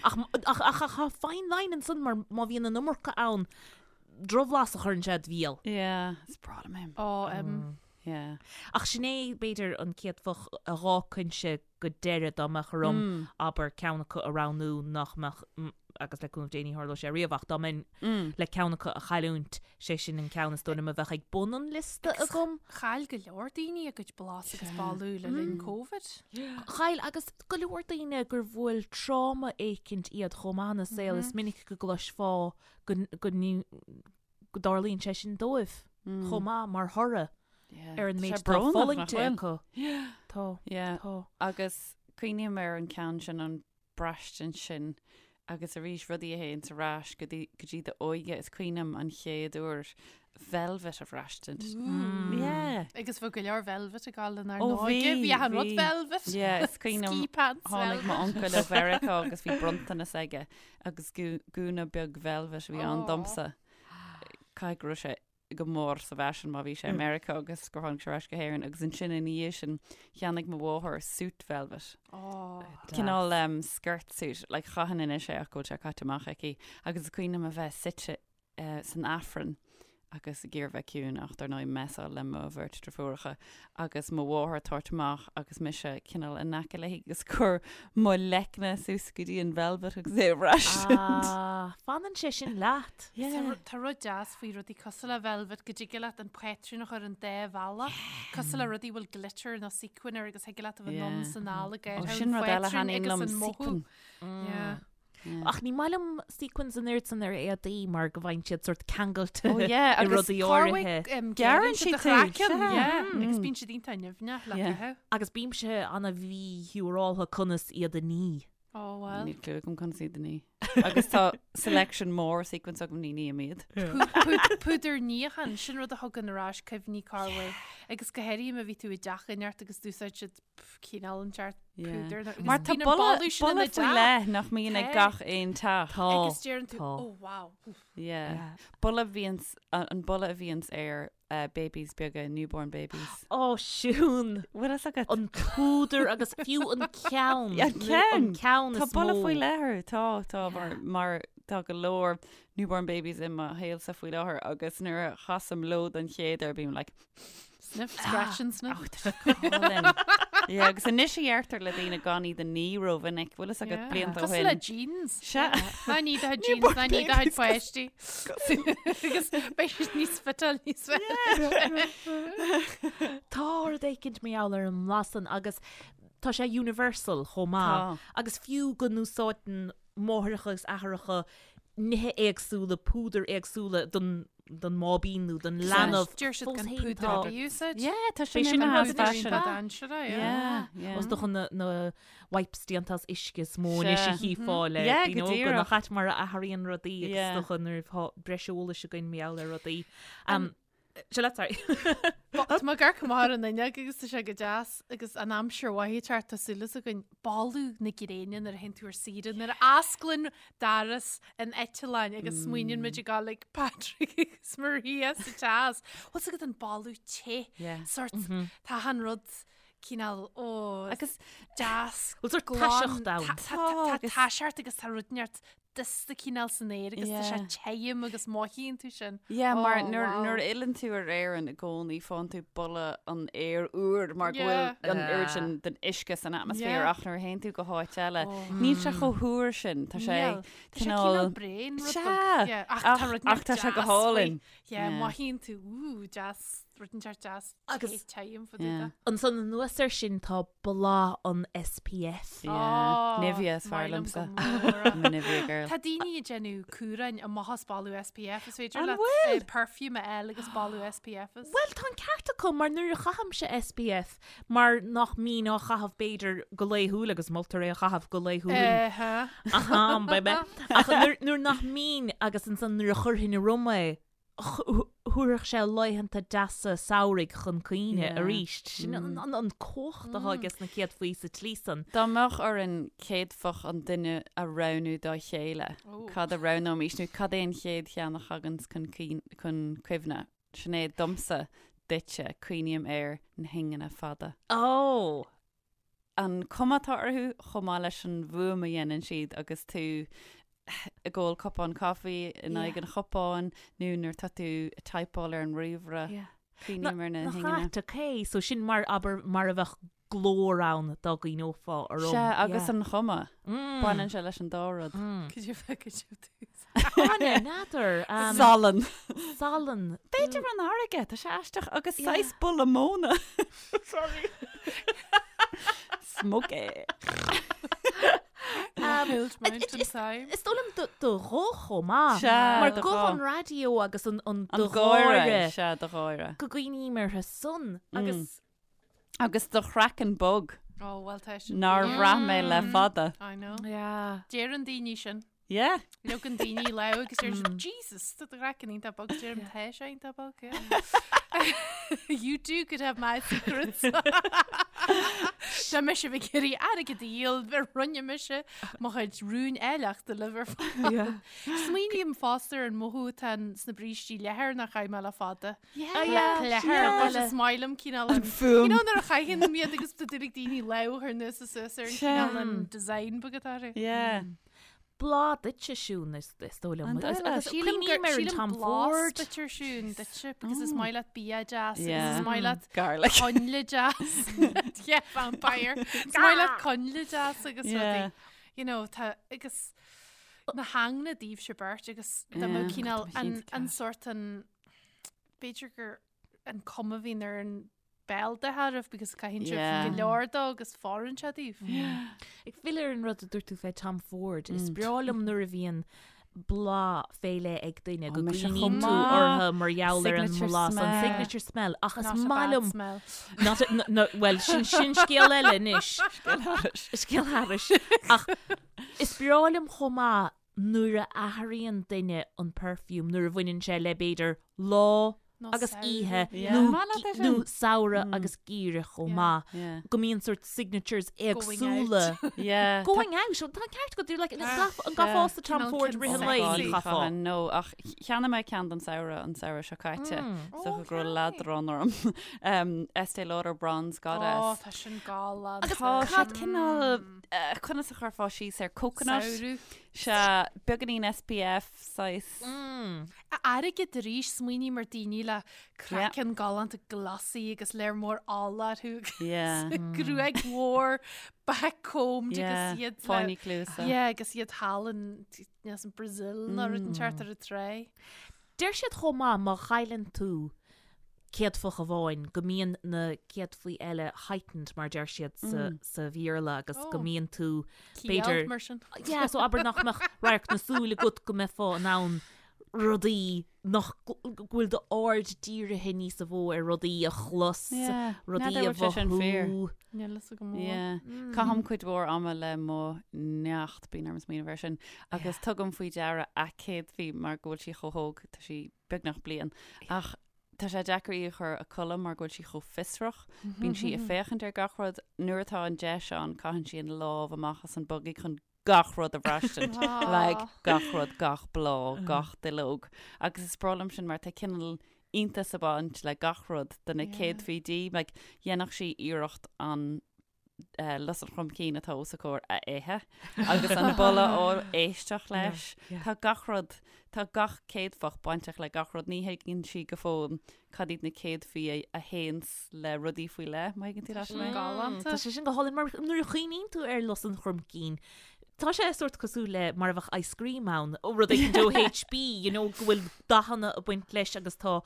Ach ach ach ach tá fine line ansan mar má bhíonn an iomarca ann, drochbhlas a chuireann sé id bhéal. Yeah, is breá liom im. Ó, im. Yeah. Ach sin é, b'fhéidir, an chéad phoc a dh'fhágfainnse go deireadh dá mbeadh orm, abair, ceann acu a roghnú nach mbeadh, agus le cúnamh Dé ní tharlóidh sé riamh, ach dá mbeinn le ceann acu a chailliúint, sé sin an ceann is dóigh liom a bheadh ag bun an liosta agam. Chaill go leor daoine a gcuid blas agus boladh le linn Covid. Chaill, agus go leor daoine gur bhuail tráma éicint iad chomh maith ina saol, is minic go gcloisfeá go go dtarlaíonn sé sin dóibh chomh maith mar thoradh ar an méid atá fulaingte acu. Tá. Tá. Agus cuimhním ar an ceann sin an braistint sin agus arís rudaí a théann ar ais go dtí go dtí d'óige is cuimhin liom an chéad uair velvet a bhraistint. Yeah. Agus bhí go leor velvet ag gabháil lenár Ó, n-óige. bhí, Bhí achan rud bhí. velvet. Yeah, is cuimhin liom Ski pants tháinig velvet. m'uncail ó Mheiriceá agus bhí bronntanas aige Agus gúna beag velvet a bhí ann domsa. Caithfidh go raibh sé go mór sa bhfaisean má bhí sé i Meiriceá agus gur tháinig sé ar ais go hÉirinn agus ansin ina dhiaidh sin cheannaigh mo mháthair suit velvet. Cineál um, skirt suit, like chaithfinn anois é ach go bhfuil sé caite amach aici agus is cuimhin liom a bheith suite san Aifreann agus ag iarraidh bheith ciúin ach dar ndóigh messáil le mo bheirt driofúracha agus mo mháthair ag tabhairt amach agus mise cineál in aice léi agus cur mo leicne suas go dtí an velvet agus é a bhraistint. Ah, fanann sé sin leat. Yeah. Tá rud deas faoi rudaí cosúil le velvet go dtig leat an patrún a chur an dá bhealach, cosúil le rudaí a bhfuil glitter nó sequin air agus thig leat a bheith anonn is anall ag Ó, sin rud eile a thaitníonn liom, sequin. Yeah. Ach ní maith liom sequins an oiread san ar éadaí mar go bhfaigheann siad sort ceangailte Oh yeah, i agus rudaí áirithe. Gearrann siad tú, sea. Agus bíonn siad iontach nimhneach le Yeah. caitheamh. Agus bímse ana-mhíshiúráltha conas iad a ní. Oh well. Níl clue agam conas iad a ní. Agus tá selection mór sequins agam ní ním iad. Púdar níocháin, sin rud a thugann ar ais cuimhní corruair. Agus go háirithe má bhí tú i dteach inteacht agus d'úsáid siad cineál inteacht púdar. Agus Mar tá bíonn an boladh boladh sin ina boladh faoi dteach. leith nach mbíonn ag Tá. gach aon teach. Tá. Agus deireann tú, Tá. oh wow. Yeah. Boladh bhíonns, an boladh a bhíonns ar uh, babies beaga, newborn babies. Ó, Siún! Bhfuil fhios agat? An púdar agus fiú an ceann. Yeah, an ceann. An ceann Tá is boladh mó. faoi leith air. Tá, tá, mar, mar tá go leor newborn babies i mo shaolsa faoi láthair agus nuair a chasaim leo don chéad uair bím like, Sniff, scratch and sniff. Oh, tá sé go hálainn. Yeah, agus anois a dheirtear le daoine gan iad a ní rómhinic, bhfuil fhios agat blianta ó Cosúil le shin. jeans. Sea. Ná ní do jeans, ná ní do chuid páistí. Agus beidh siad níos fiteáil níos fearr. Tá rud éicint mar gheall ar an mblas san agus tá sé universal chomh maith. Tá. Agus fiú go n-úsáideann máithreacha agus athaireacha nithe éagsúla, púdair éagsúla don don mbáibín nó don leanbh. Deir siad Fós gan féin púdar tá- ar bith a úsáid. Yeah, tá B'é sin sin imithe an as rud anois, fashion. ba. Dainséarach, yeah. Yeah, yeah. Is dócha na, na wipes déanta as uisce is mó anois a Sea. chífeá le Yeah, daoine go óga díreach. nach ait mar a athraíonn rudaí agus Yeah. is dócha nuair atá breis eolais againn mar gheall ar rudaí. Um, Seo leat, sorry. Tá mé ag amharc amach ar an fhuinneog agus tá sé go deas agus an aimsir mhaith ag teacht tá súil againn boladh na gréine nuair a théann tú ar saoire nuair a osclaíonn doras an eitleáin agus smaoiníonn muid ag gabháil ag Patrick agus Maria sa teas. Bhfuil fhios agat an boladh te Yeah. sort tá an rud cineál ó Agus deas Bhfuil sort glan, taiseacht ann. tá- tá- tá Tá, agus- taiseacht agus tá rud neart dusta cineál san aer agus tá sé Yeah. tirim agus mothaíonn tú sin. Yeah, mar Oh, nuair wow. nuair a fhilleann tú ar Éirinn i gcónaí faigheann tú boladh an aeir úr mar go Yeah. bhfuil an oiread Ah. sin den uisce san atmaisféar Yeah. ach nuair a théann tú go háit eile Oh. níl sé chomh húr sin tá sé Níl. Tá sé cineál cineál bréan rud Sea. beag. Yeah, ach tá Ach rud ach tá sé go deas faoi. hálainn. Yeah, Yeah. mothaíonn tú ú deas. rud inteacht deas Agus- time for yeah. Ansan anuas air sin tá bláth an SPF. Yeah. Nivea is fearr liomsa. I'm a Nivea girl. Tá daoine ag déanamh cumhráin amach as boladh SPF is féidir An leat bhfuil? eh, perfume a fháil agus boladh SPF as. Bhuel, tá an ceart acu mar nuair a chaithimse SPF mar nach mbínn á chaitheamh b'fhéidir go laethúil agus moltar é a chaitheamh go laethúil. Aha. Aha, baby. Ach nuair nuair nach mbínn agus ansan nuair a chuirfinn orm é, thabharfadh sé laethanta deasa samhraidh chun cuimhne arís. Sin an cumhacht atá aige sna céadfaí sa tslí san. Dá mbeadh orainn céadfach an duine a roghnú dá chéile, cad a roghnóimís nó cad é an chéad cheann a thaganns chun cuimhne? Sinéad, domsa, duitse, cuimhním ar na hingne fada. Ó! an cuma atá orthu chomh maith leis an bhfuaim a dhéanann siad agus tú ag ól cupán caife in aghaidh an chupáin nó nuair atá tú ag typeáil ar an ríomhaire. Cuimhním ar na Nach hingne. ait, ok, so sin mar, abair, mar a bheadh glór ann dá gcuimhneofá orm. Sea, agus an chuma. Baineann sé leis an dá rud. Could you could you do Áine, n'fheadar. Salann. Salann. B'fhéidir an fharraige, tá sé aisteach agus saghas boladh móna. Sorry. Smoky. Hild Mountain Time. Is dóigh liom do ghuth chomh maith. Sea, Mar do guth ghuth. an raidió agus an An do gáire. gháire. Sea, do gháire. Go gcuimhním orthu san agus. Agus do chraiceann bog. Oh, well tá sin. Nár bhraith mé le fada. I know. Yeah. Deireann daoine sin. Yeah. Leogann daoine lámh agus deir siad, Jesus, tá do chraiceann iontach bog. Deirim, tá sé iontach bog, yeah. You too could have my secrets. Tá mise ag iarraidh airgead a dhíol, roinnfidh mise mo chuid rúin áilleachta libh ar fad. Yeah. Smaoiním fosta ar an mothú atá sna brístí leathair nach chaith mé le fada. Yeah, yeah. Leathair, is maith liom cineál an fuaim. You know nuair a chaitheann iad agus tá dúil ag daoine lámh a chur anuas is suas ar an cineál an design beag atá orthu. Yeah. Bláth duitse Siún is dóigh liom. An dóigh leat? Sílim Cuimhním gur ar an sílim Tom blas Ford. duit ar Siún duitse because is maith leat bia deas agus Yeah. is maith leat Garlic. coinnle deas. Yeah, vampire. Is maith leat coinnle deas agus Yeah. rudaí. You know, tá agus na hingne daoibhse beirt agus dá mbeadh Yeah. cineál Tá an cinnte an ceart. sort an b'fhéidir gur an cuma a bhíonn ar an béal de thairbh because caitheann sibh Yeah. go leor dó agus fóireann sé daoibh. Ag filleadh ar an rud a dúirt tú fé Tom Ford, is breá liom nuair a bhíonn bláth fé leith ag duine go mise gcuimhníonn chomh tú maith. orthu mar gheall ar an Signature mblas, an smell. signature smell, ach is Not a maith bad liom smell. Not a, no, no, well, sin, sin scéal eile anois. Scéal thairis. Ach is breá liom chomh maith nuair a athraíonn duine an perfume, nuair a bhaineann sé le b'fhéidir lá Nó agus samhradh. oíche Yeah. nó Maith leat é gi- nó sin. samhradh agus geimhreadh chomh Yeah. maith. Yeah. Go mbíonn sort signatures Going éagsúla. Yeah. Going out, tá an ceart agat, like, an gcaithfeá Tom Cineál Ford rith an lae, sexy. ní chaithfeá. No, ach cheannaigh mé ceann don samhradh an samhradh seo caite. So Oh, go raibh okay. leadrán orm. Um, Estée Lauder Bronze Ó, Goddess. tá sin galánta. Agus tá sé cineál eh, conas a chuirfeá síos air coconut. Samhradh. Sea, beagáinín SPF saghas. Airgead arís, smaoiním ar daoine le craiceann galánta glossy agus léir mór ola orthu agus Yeah. gruaig mhór backcombed Yeah, agus iad le- fáinní cluasa. Yeah, agus iad thall in yes, in Brazil nó rud inteacht ar an trá. Deir siad chomh maith má chailleann tú céadfach amháin go mbíonn na céadfaí eile heightened mar deir siad sa, sa Bhéarla agus go Oh. mbíonn tú Ciall b'fhéidir mar sin. Yeah, so abair nach mbeadh radharc na súl agat go mbeifeá in ann rudaí nach go bhfuil d'aird dírithe níos mó ar rudaí a chlos, Yeah, rudaí n'fheadar a bhfuil sé sin fíor. mhothú. Níl fhios agam mó. Yeah. Caithim cuid mhór ama le mo neacht, bíonn orm smaoineamh air sin, agus tugaim faoi deara a céadfaí mar go bhfuil sí chomh hóg, tá sí beagnach bliain. Ach tá sé deacair í a chur a codladh mar go bhfuil sí chomh fiosrach, bíonn sí ag féachaint ar gach rud, nuair atá an deis ann caitheann sí an lámh amach as an buggy chun gach rud a bhraistint, like gach rud, gach bláth, gach duilleog. Agus is breá liom sin mar tá cineál iontas ag baint le gach rud do na Yeah. céadfaí di, like dhéanfadh sí iarracht an eh, lus an chromcinn atá os a comhair a ithe agus an boladh á éisteacht leis. yeah. Tá gach rud, tá gach céadfach bainteach le gach rud, ní thuigeann sí go fóill cad iad na céadfaí a, a théanns le rudaí faoi leith, má thuigeann tú leat mé? Galánta. Tá sé sin go hálainn mar nuair a chuimhníonn tú ar lus an chromcinn, Tá sé sórt cosúil le mar a bheadh ice cream ann, ó rud éicint ó HB, you know, go bhfuil dathanna ag baint leis agus tá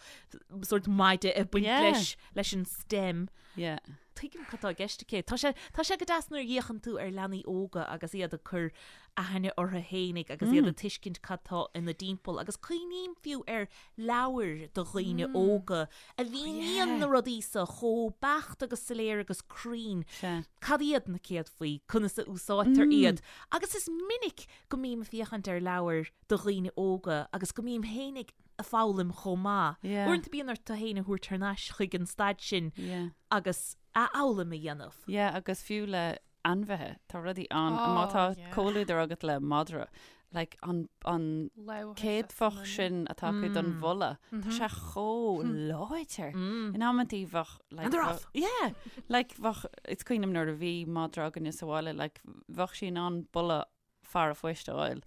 sórt maide ag baint leis, leis an stem. Yeah. Tuigim cad tá i gceist aici. Tá sé, tá sé go deas nuair a fhéachann tú ar leanaí óga agus iad ag cur aithne orthu fhéinig agus iad ag tuiscint cad tá ina dtimpeall agus cuimhním fiú ar leabhair do dhaoine óga a mhíníonn na rudaí so chomh beacht agus soiléir agus cruinn. Cad iad na céadfaí? Conas a úsáidtear iad? Agus is minic go mbím ag féachaint ar leabhair do dhaoine óga agus go mbím féinig ag foghlaim chomh maith. Uaireanta bíonn ort tú féin a thabhairt thar n-ais chuig an staid sin agus athfhoghlaim a dhéanamh. Yeah, agus fiú le ainmhithe, tá rudaí ann, má tá comhluadar agat le madra, like an, an céadfach sin atá acu don bholadh, tá sé chomh láidir. In amantaí bheadh, like, And they're off. Yeah, like bheadh, is cuimhin liom nuair a bhí madra againne sa bhaile, like bheadh sí in ann boladh fear a phoist a fháil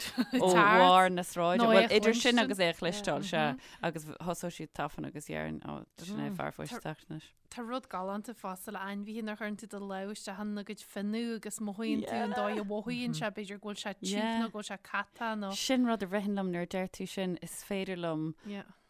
ó bharr na sráide. Nó é Bhuel, a idir sin chluinstin. agus é a chloisteáil, sea. Agus thosódh siad tafann agus déarfainn, ó, sin é fear a phoist ag teacht anois. Tá rud galánta fosta le ainmhithe nuair a chuireann tú do lámh isteach ina gcuid fionnadh agus mothaíonn tú an dóigh a mhothaíonn sé, b'fhéidir go bhfuil sé tiubh nó go bhfuil sé cata nó. Sin rud a ritheann liom nuair a deir tú sin, is féidir liom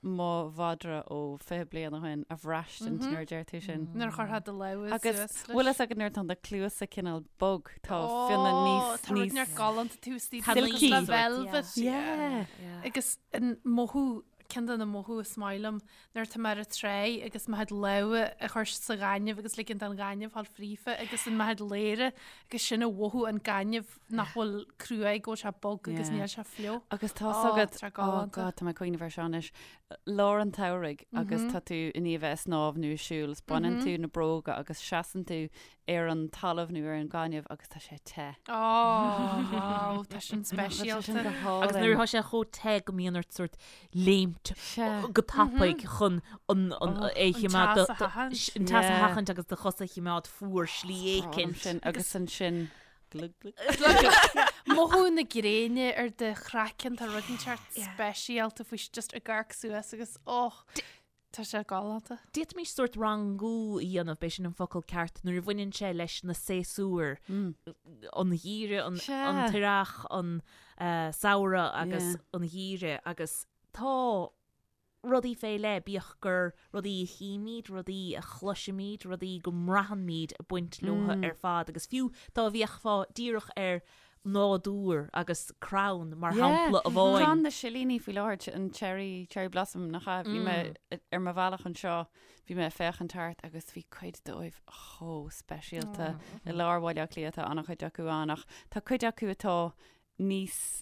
mo mhadra ó 20 bliain ó shin a bhraistint nuair a deir tú sin. Nuair a chuirfeá do lámh Agus suas leis. bhfuil fhios agat nuair atá do chluasa cineál bog, tá fionnadh níos, Tá rud níos. neart galánta tú istigh Silky. le velvet. Yeah. Agus an mothú Ceann de na mothú is maith liom nuair atá mé ar an tráigh agus mo chuid lámha a chur sa ghaineamh agus ligean don ghaineamh fáil fríofa agus an mo chuid lámha agus sin a mhothú an gaineamh nach bhfuil cruaidh go bhfuil sé bog agus níl sé fliuch. Agus tá 's agat, oh God, tá mé ag cuimhneamh air seo anois, lár an tsamhraidh agus tá tú i ndiaidh a bheith ag snámh nó ag siúl is baineann tú na bróga agus seasann tú ar an talamh nó ar an gaineamh agus tá sé te. Ó, wow, tá sin speisialta. Agus nuair atá sé chomh te go mbíonn ort sórt léimt go tapaidh chun an é a choimeád, An teas a sheachaint. an teas a sheachaint agus do chosa a choimeád fuar slí éicint. Sin agus ansin glug glug. Mothú na gréine ar do chraiceann, tá rud inteacht speisialta faoi just ag amharc suas agus oh, Tá sé galánta. D'fhéadfaimis sórt rangú a dhéanamh, b'é sin an focal ceart, nuair a bhaineann sé leis na séasúir, an gheimhreadh, an t-earrach, an samhradh agus an geimhreadh agus tá rudaí fé leith, bíodh gur rudaí a chímid, rudaí a chloisimid, rudaí go mbraitheann-míd ag baint leo ar fad agus fiú dá bhféachfá díreach ar nádúr agus crann mar shampla amháin. Crann na silíní faoi láthair, an cherry, cherry blossom, nach ea? Bhí mé ar mo bhealach anseo, bhí mé ag féachaint thart agus bhí cuid dóibh chomh speisialta. I lár Bhaile Átha Cliath tá an-chuid acu ann ach tá cuid acu atá níos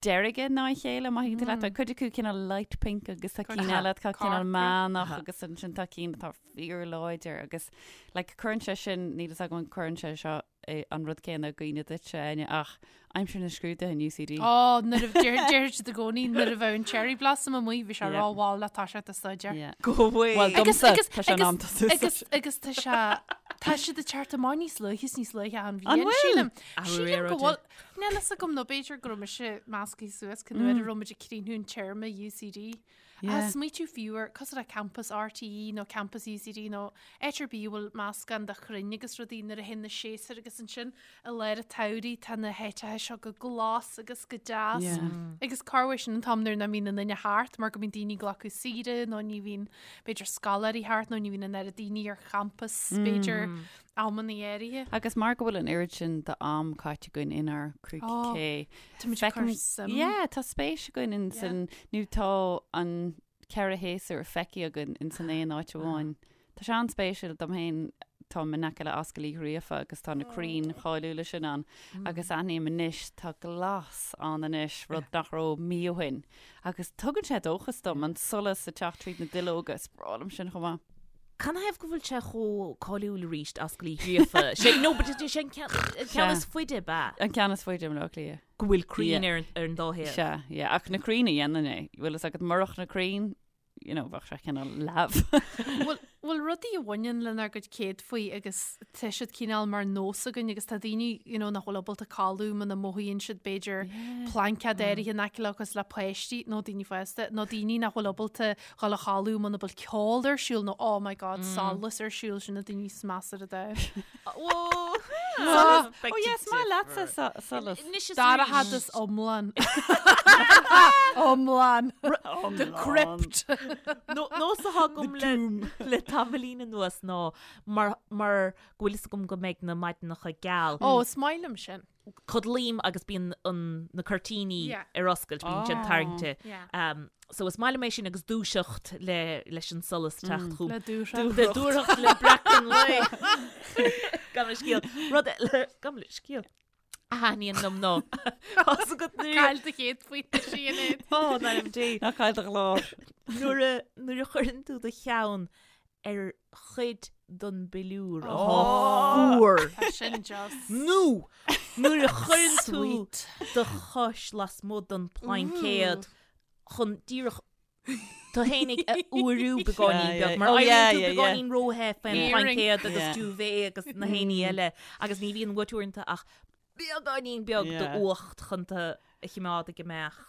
deirge ná a chéile, má thuigeann tú leat. Tá cuid acu cineál light pink agus tá cinn eile atá cineál meánach agus ansin tá cinn atá fíorláidir agus like cuireann sé sin, níl fhios agam an cuireann sé seo é an rud céanna i gcuimhne duitse, Áine, ach aimsir na scrúduithe in UCD. Ó, nuair a deir deir siad i gcónaí nuair a bheadh an cherry blossom amuigh bhí sé rómhall le toiseacht ag staidéar. Yeah. Go bhfuil. Bhuel, Agus domsa, agus tá sé in am agus tosú. agus agus tá sé tá siad ag teacht amach níos luaithe is níos luaithe an An bhliain bhfuil? sílim. Athrú Sílim go aeráide. bhfuil Níl fhios agam nó b'fhéidir go raibh mise measctha suas cén uair a raibh muid ag críochnú an téarma UCD. Yeah. Smaoitiú fiú ar cosúil le campas RTÉ nó campas UCD nó áit ar bith a bhfuil meascán de chrainn agus rudaí nuair a théann na séasúir agus ansin i lár an tsamhraidh tá na háiteacha seo go glas agus go deas Yeah. agus corruair sin an t-am nuair nach mbíonn aon duine thart mar go mbíonn daoine ag glacadh saoire nó ní bhíonn b'fhéidir scoláirí thart nó ní bhíonn an oiread daoine ar champas b'fhéidir amanna áirithe. Agus mar go bhfuil an oiread sin d'am caite againn inár gcúig Ó, cé. Táimid ag cur Feicim- suim. Yeah, tá spéis againn in san, nó tá an ceithre shéasúr feicthe againn in san aon áit amháin. Tá sé an-spéisiúil dom féin, táim in aice le Ascaill Uí Ghríofa agus tá na crainn cháiliúla sin ann agus aithním anois, tá glas ann anois, rud nach raibh mí ó shin. Agus tugann sé dóchas dom, an solas ag teacht tríd na duilleoga, is breá liom sin chomh maith. Canathaobh go bhfuil sé chomh cáiliúil arís, Ascaill Uí Ghríofa? Sé, no, but is é an ceann, an ceann is faide, ab ea? An ceann is faide i mBaile Átha Cliath. Go bhfuil crainn Yeah. ar, ar an dá thaobh. Sea, yeah. Ach na crainn a dhéanann é. Bhfuil fhios agat murach na crainn, you know, bheadh sé cineál leamh. Bhfuil, Bhuel, rudaí a bhaineann lenár gcuid céadfaí agus tá siad cineál mar nós againn agus tá daoine you know, nach bhfuil ábalta codladh muna mothaíonn siad b'fhéidir plaincéad áirithe in aice leo cosúil le páistí nó daoine fásta nó daoine nach bhfuil ábalta dhul a chodladh muna bhfuil ceol ar siúl nó oh my god, solas ar siúl sin na daoine is measa ar an domhan. Solas. Oh yes, maith leatsa solas. Dorchadas iomlán. Iomlán. The crypt. Nós atá agam le tamaillín anuas ná mar mar go bhfuil fhios agam go mbeidh na maidineacha geal. Ó, is maith liom sin. Codlaím agus bíonn an na cuirtíní ar oscailt, bíonn siad tarraingte. So is maith liom é sin agus dúiseacht le leis an solas teacht chugam. Le dúthracht. Le dúthracht le breacadh an lae. Gabh mo leithscéal. Rud eile, gabh mo leithscéal. A thaitníonn liom ná. Tá's agat nuair. Caill do chéad phointe Sinéad. Ó, in ainm Dé. Ná caill do ghlór. Nuair a nuair a chuireann tú do cheann ar chuid den bpiliúr atá fuar. Tá sin just. Nó nuair a chuireann tú do chois lasmuigh den phlaincéad chun díreach tú fhéinig a fhuarú beagáinín beag, mar éiríonn tú beagáinín róthe faoin bplaincéad agus duvet agus na héinní eile agus ní bhíonn uait uaireanta ach beagáinín beag d'fhuacht chun tú a choimeád ag imeacht.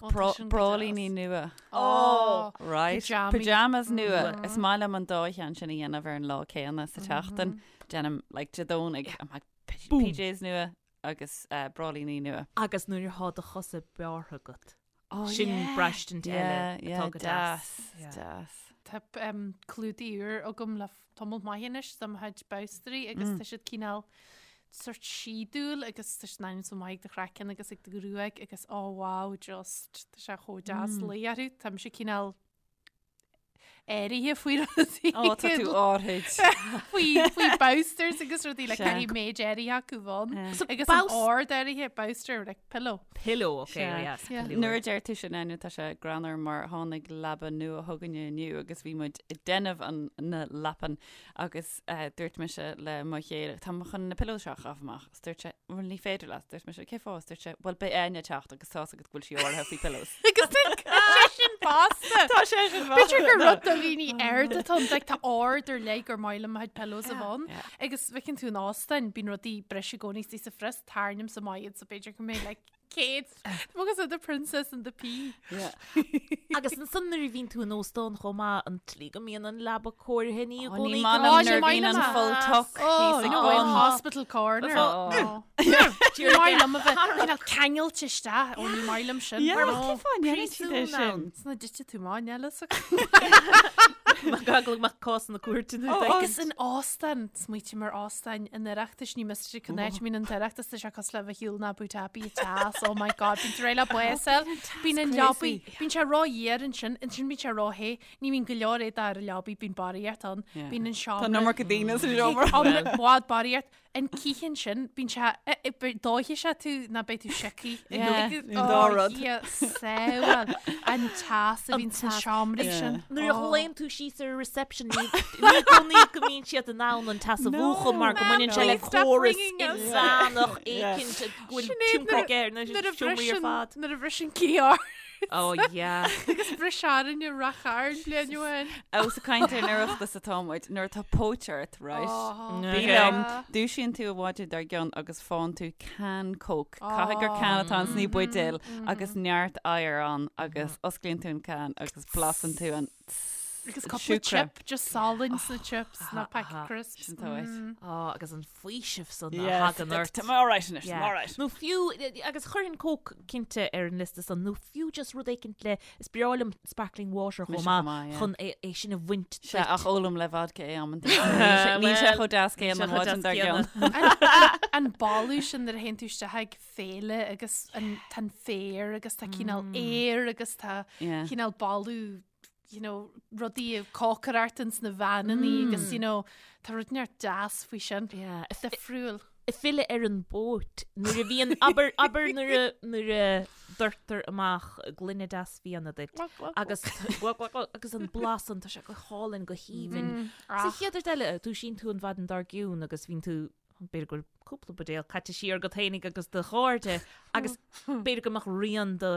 Bráillíní nua. Ó! Right. Pyjamas nua. Is maith liom an dá cheann sin a dhéanamh ar an lá céanna sa tseachtain. Déanaim, like, Dé Domhnaigh, I'm like, PJs nua agus bráillíní nua. Agus nuair atá do chosa bearrtha agat. Sin braistint eile atá go deas. Deas. Tá clúdaigh úr agam le tamall maith anois do mo chuid bobstairí agus tá siad cineál sort síodúil agus tá siad in ainm is maith ag do chraiceann agus ag do ghruaig agus oh wow just tá sé chomh deas luí orthu. Tá mise cineál áirithe faoi rudaí. Ó, tá tú áirid. Faoi faoi bolsters agus rudaí le caithfidh méid áirithe acu bheith ann. So Agus an ard áirithe bolster like pillow. Pillow, okay, Sea. yes, Yeah. pillow. Nuair a deir tú sin Áine, tá sé greannmhar mar tháinig leaba nua chugainne inniu agus bhí muid ag déanamh an na leapan agus eh, dúirt mise le mo chéile, tá mé chun na pillows seo a chaitheamh amach. Is dúirt sé, bhuel ní féidir leat. Dúirt mise, cé fáth? Is dúirt sé, bhuel beidh Áine ag teacht agus tá's agat go bhfuil sí áirithe faoi pillows. Agus tá sé sin fosta. Tá sé sin B'fhéidir gur rud do dhaoine arda atá ann, like, tá ard ar leith gur maith liom mo chuid pillows a bheith ann. Agus feiceann tú in óstáin, bíonn rudaí breis i gcónaí istigh sa phrios, tarraingímse amach iad so b'fhéidir go mbeidh like céad. Tá agus the princess and the pea. Yeah. Agus ansan nuair a bhíonn tú in óstán chomh maith, an tslí go mbíonn an leaba cóirithe ní i Ó, gcónaí ní go maith Ó, liom ní nuair a maith bhíonn liom an é. full tuck Oh, thíos ag no, in bun. hospital corner. Oh. Ní maith liom a bheith cineál ceangailte isteach. Ó, ní maith liom sin. Yeah, Mar cén fáth a ndéanann siad é Príosún sin? ann. Sna dtite tú maith, eile sa Gaglag mac cás na cúirte nó Oh, agus in óstán, smaoitím ar óstáin an Oireachtais, ní miste go n-áit mín an tOireachtas, tá sé cosúil le bheith ar shiúl in Abu Dhabi ag teas, oh my god, bíonn tú réidh le bás a fháil, bíonn an leabaidh, bíonn sé ró-fhuar ansin, ansin bíonn sé ró-the, ní bhíonn go leor éadaí ar an leabaidh, bíonn barraíocht ann, bíonn an seomra. Tá an iomarca daoine sa seomra. Tá bhfad barraíocht, An cith ansin, bíonn sé, dófaidh sé tú ná beidh tú sioctha. Yeah, an dá rud. Dia sábháil an teas a bhíonn sna seomraí sin. Nuair a ghlaonn tú síos ar reception ní i gcónaí go mbíonn siad in ann an teas a mhúchadh mar go mbaineann sé le córas inmheánach éicint go bhfuil tionchar aige ar na seomraí ar fad. Nuair a bhriseann cith ort. Oh yeah. Agus bhris orainne i Ráth Chairn bliain ó shin. Ós ag caint ar an Oireachtas atá muid, nuair atá póit ort, right? Oh, Bí liom, dúisíonn tú an mhaidin dár gcionn agus faigheann tú can Coke. Caithfidh gur can atá ann sna buidéil agus neart oighir ann agus osclaíonn tú an can agus blasann tú an Agus cúpla siúcra. chip, just salann sna chips, ná packet crisps. Sin tá uait. Oh, agus an faoiseamh san a Yes, thagann ort. Tá mé alright anois, tá mé alright. Nó fiú, agus chuirfinn Coke cinnte ar an liosta san, nó fiú just rud éicint le, is breá liom sparkling water chomh Mise maith, chomh maith, yeah. chun é é sin a bhaint Sea, ach ólaim le vodka é amanta. Níl sé chomh deas céanna an mhaidin dár gcionn. An boladh sin nuair a théann tú isteach ag féile agus an tá an féar agus tá cineál aer agus tá Yeah. cineál boladh you know, rudaí ag cócaireacht ins na veaineannaí agus, you know, tá rud inteacht deas faoi sin. Yeah. Difriúil. Ag filleadh ar an bpóit, nuair a bhíonn, abair, abair nuair a, nuair a doirtear amach gloine deas fíona duit agus, agus an blas san, tá sé go hálainn, go haoibhinn. Sa chéad rud eile, dúisíonn tú an mhaidin dár gcionn agus bíonn tú, b'fhéidir go bhfuil cúpla buidéal caite siar agat fhéinig agus do chairde agus b'fhéidir go mbeadh rian de.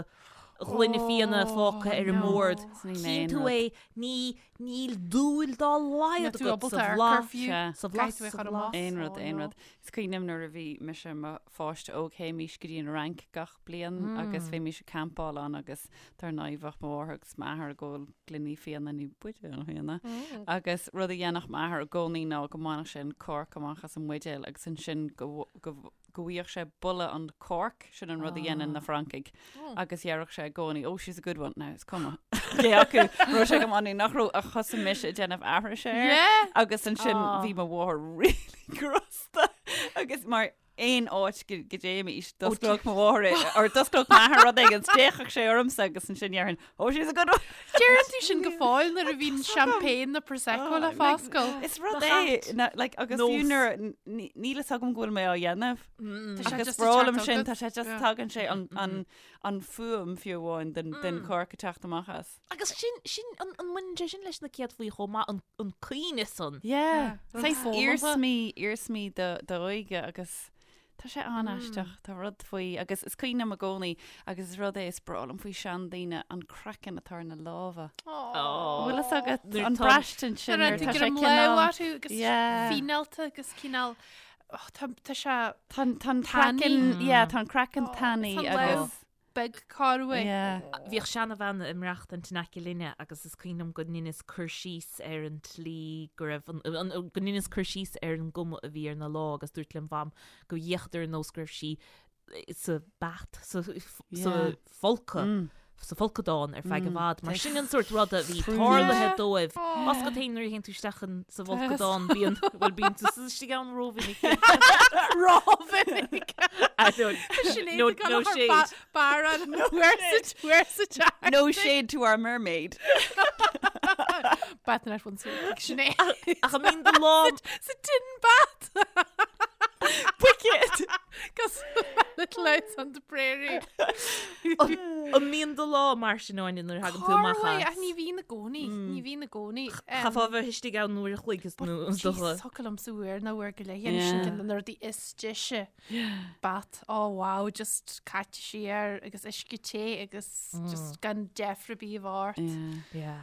ghloine fíona fágtha ar an mbord. Chíonn tú é, ní, níl dúil dá laghad agat sa bhlas, sa bhlas, sa bhlas. Aon rud, aon rud. Is cuimhin liom nuair a bhí mise i mo pháiste óg, théimís go dtí an Fhrainc gach bliain agus bhímís ag campáil ann agus dar ndóigh bheadh mo mháthair agus m'athair ag ól gloiní fíona nó buidéal fíona agus rud a dhéanfadh m'athair i gcónaí ná go mbainfeadh sé an corc amach as an mbuidéal agus ansin go go go bhfaigheadh sé boladh an corc, sin an rud a dhéanann na Francaigh, agus dhéarfadh sé i gcónaí, oh, she's a good one, now is cuma cé acu raibh sé go maith nó nach raibh ach thosaigh mise ag déanamh aithrise air Yeah! agus ansin bhí mo mháthair really crosta agus mar aon áit go go dtéimís d'osclódh mo mháthair é, or d'osclódh m'athair rud éigin, d'fhéachfadh sé ormsa agus ansin dhéarfainn, oh, she's a good one. Deireann tú sin go fóill nuair a bhíonn champagne nó prosecco le foscailt. Is rud é, na- like, agus fiú nuair níl a fhios agam go bhfuil mé á dhéanamh. Tá sé Agus just ag breá liom teacht sin, agat. tá sé just Yeah. tagann sé an, an, an fuaim fiú amháin den, den corc ag teacht amach as. Agus sin, sin, an, an mbaineann sé sin leis na céadfaí chomh maith, an, an cuimhne san? Yeah. rud Saghas foghlamtha. iarsmaí, iarsmaí do, d'óige agus Tá sé an-aisteach, tá rud faoi, agus is cuimhin liom i gcónaí, agus is rud é is breá liom faoi seandaoine, an craiceann atá ar na lámha. Aww. Bhfuil fhios agat Nuair an tá- braistint sin Nuair nuair atá tá sé greim cineál... lámh orthu agus Yeah. fíneálta agus cineál oh, tá tá sé Tá an- tá an Tanaí. craiceann, yeah, tá an craiceann Oh, tanaí tá an lámh. agus... beag corruair. Yeah. Bhíodh seanabhean ag maireachtaint in aice linne agus is cuimhin liom go ndeineas cur síos ar an tslí go raibh an, an, go ndeineas cur síos ar an gcuma a bhí ar na lámha agus dúirt lem mham go bhféachadar ar nós go raibh sí sa bath, sa, sa Yeah. folcadh. Mm. sa bhfolcadán ar feadh i bhfad. Mar sin an sórt ruda a bhí Sprúnna. tarlaithe dóibh. Más go téann nuair a théann tú isteach in sa bhfolcadán bíonn bhuel bíonn tú sa istigh ann rómhinic. Rómhinic. Sinéad No, no shade. Baran where's the where's the chat? No shade to our mermaid. Bat net once a week. Sinéad. Ach an mbíonn do lámh Sa tin bat. Wicked! Cos little house on the prairie. An mbíonn do lámha mar sin Áine nuair a thagann tú amach Corruair, as? ach ní bhíonn i gcónaí. Ní bhíonn i gcónaí. Chaithfeá bheith istigh ann uair a chloig is nó is dócha. Jeez, thiocfadh liomsa uair nó uair go leith. Dhéanamh sin Yeah. ceann de na rudaí is deise. Bat, oh wow, just caite siar agus uisce te agus just gan deifir ar bith a bheith ort. Yeah. Yeah.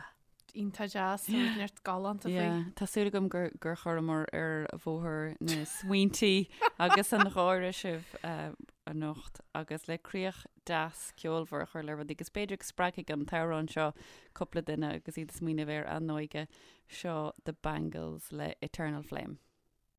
Iontach deas, tá rud neart galánta faoi. Yeah, Tá súil agam gur, gur chuireamar ar bhóthar na smaointí agus an gháire sibh uh, anocht agus le críoch deas ceolmhar a chur le rudaí agus b'fhéidir go spreagfaidh an t-amhrán seo cúpla duine agus iad ag smaoineamh ar a n-óige seo The Bangles le Eternal Flame.